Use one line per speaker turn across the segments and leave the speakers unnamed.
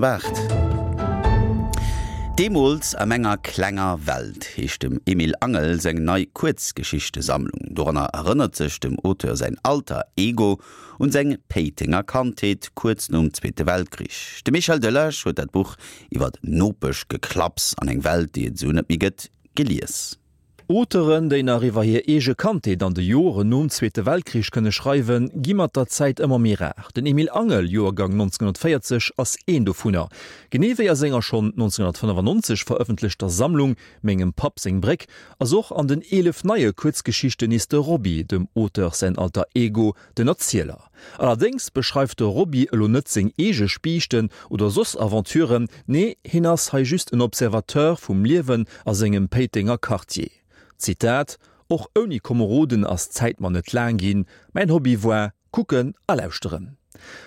Waart. Deemools a menger klenger Welt heescht dem Emil Angel seng nei Kuerzgeschichtesammlung. Doranner erënnert sech dem Auteur säin Alter Ego un seng Péitenger Kandheet kuerz nom Zweete Weltkrich. De Michel Delage huet dat Buch iwwer Nopeschgeklapps an eng Welt, déi et esou net méi gëtt, gelies.
Auteuren, déi nach iwwer hir eege Kandheet an de Joren nom Zweete Weltkrich kënne schreiwen, gi mat der Zäit ëmmer méi rar. Den Emil Angel, Joergang 1940, ass een dovunner. Genee wéi a senger schonn 1995 verëffentlechter Sammlung Mengem Papp seng Bréck ass och an den 11 neie Kuerzgeschichten nees de Roby, dem Auteur säin Alter Ego, den Erzieler. Allerdéngs beschreift de Roby elo net seng eege Spiichten oder soss Aventuren, nee, hien ass hei just en Observateur vum Liewen a sengem Péitenger Quartier. Zitat, Och ouni Komeroden ass d'Zäit mer net laang ginn, mäin Hobby war kucken a lauschteren.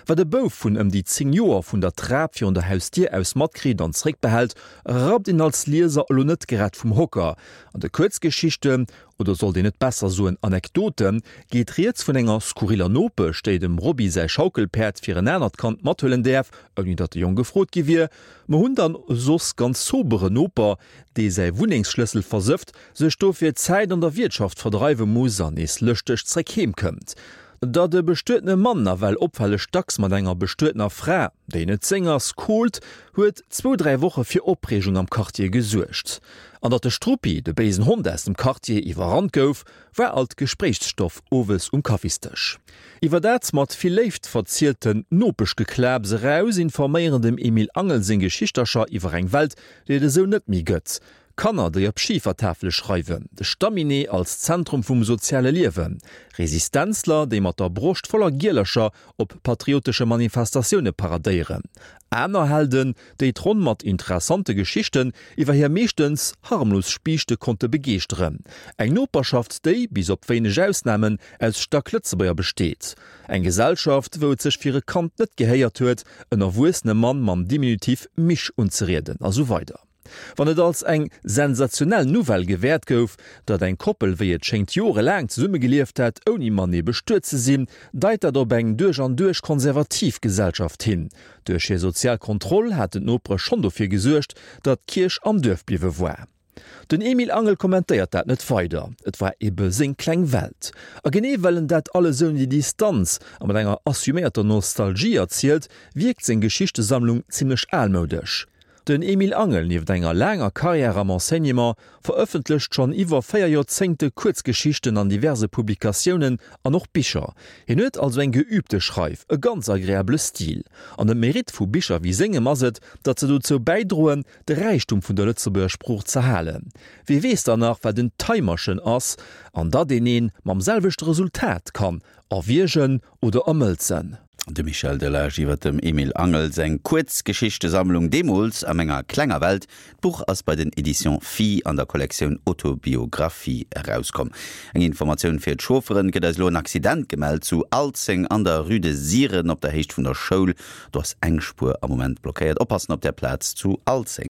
Wat e Bouf vun ëm déi 10 Joer vun der Trap virun der Hausdier aus matkritt an zréckbehält, rappt een als Lieser elo net grad vum Hocker. An de Kuerzgeschichten oder sollt een net besser soen Anekdoten, geet rieds vun enger skurriller Nopesch, déi dem Roby säi Schaukelpäerd fir en anert Kand mathuelen däerf, ouni datt de Jong gefrot gi wier. Mer hunn dann e soss ganz sobere Noper, dee säi Wunnengsschlëssel versëfft, sech dofir Zäit an der Wiertschaft verdreiwe muss an nees lëschteg zréck heem kënnt. Datt e bestuetene Mann nawell opfälleg dacks mat enger bestuetener Fra, déi net seng ass, kohlt, huet zwou, dräi Woche fir Opreegung am Quartier gesuergt. An datt de Struppi, de béisen Hond aus dem Quartier, iwwerrannt gouf, war alt Gespréichsstoff owes um Kaffisdësch. Iwwer dat mat vill Léift verzielten Nopeschgeklaps eraus informéieren dem Emil Angel seng Geschichtercher iwwer eng Welt, déi et esou net méi gëtt, Kanner, déi op Schifertafele schreiwen, de Stamminee als Zentrum vum soziale Liewen, Resistenzler, déi mat der Broscht voller Gielercher op patriotesche Manifestatioune paradéieren, aner Helden, déi d'Ronn mat interessante Geschichten iwwer hir meeschtens harmlos Spiichte konnte begeeschteren, eng Noperschaft, déi, bis op wéineg Ausnamen, aus Stacklëtzebuerger besteet, eng Gesellschaft, wou et sech fir e Kand net gehéiert huet, en erwuessene Mann mam Diminutiv Misch unzerieden, a sou weider. Wann et als eng sensationell Nouvelle gewäert gouf, datt eng Koppel wéi et schéngt jorelaang zesummegelieft hätt, ouni matenee bestuet ze sinn, deit dat op eng duerch an duerch konservativ Gesellschaft hin. Duerch hir sozial Kontroll haten d'Nopere schonn dofir gesuergt, datt d'Kierch am Duerf bliwwe war. Den Emil Angel kommentéiert dat net weider, et war ebe seng kleng Welt. A genee well en dat alles ouni Distanz a mat enger assuméierter Nostalgie erzielt, wierkt seng Geschichtesammlung zimmlech almoudesch. Den Emile Angel, nieft enger laanger Karriär am Enseignement, verëffentlecht schonn iwwer 4 Joerzéngte Kuerzgeschichten an diverse Publikatiounen an och Bicher. Hien huet also eng geübte Schreif, e ganz agreabele Stil. An de Mérite vu Bicher wéi sengem ass et, datt se dozou bäidroen, de Räichtum vun der Lëtzebuerger Sprooch z'erhalen. Wie weess dann nach, wat en Taimerchen ass an datt een een mam selwechte Resultat kann erwiergen oder ermëlzen?
De Michel Delage iwwer dem Emil Angel seng Kuerzgeschichtesammlung Deemools a menger klenger Welt. D'Buch ass bei den Editions Phi an der Kollektioun Autobiographie erauskomm. Eng Informatioun fir d'Chaufferen, Et gëtt eis elo en Accident gemellt zu Alzeng an der Rue de Siren op der Héicht vun der Schoul. Do ass eng Spuer am Moment blockéiert. Oppassen op där Plaz zu Alzeng.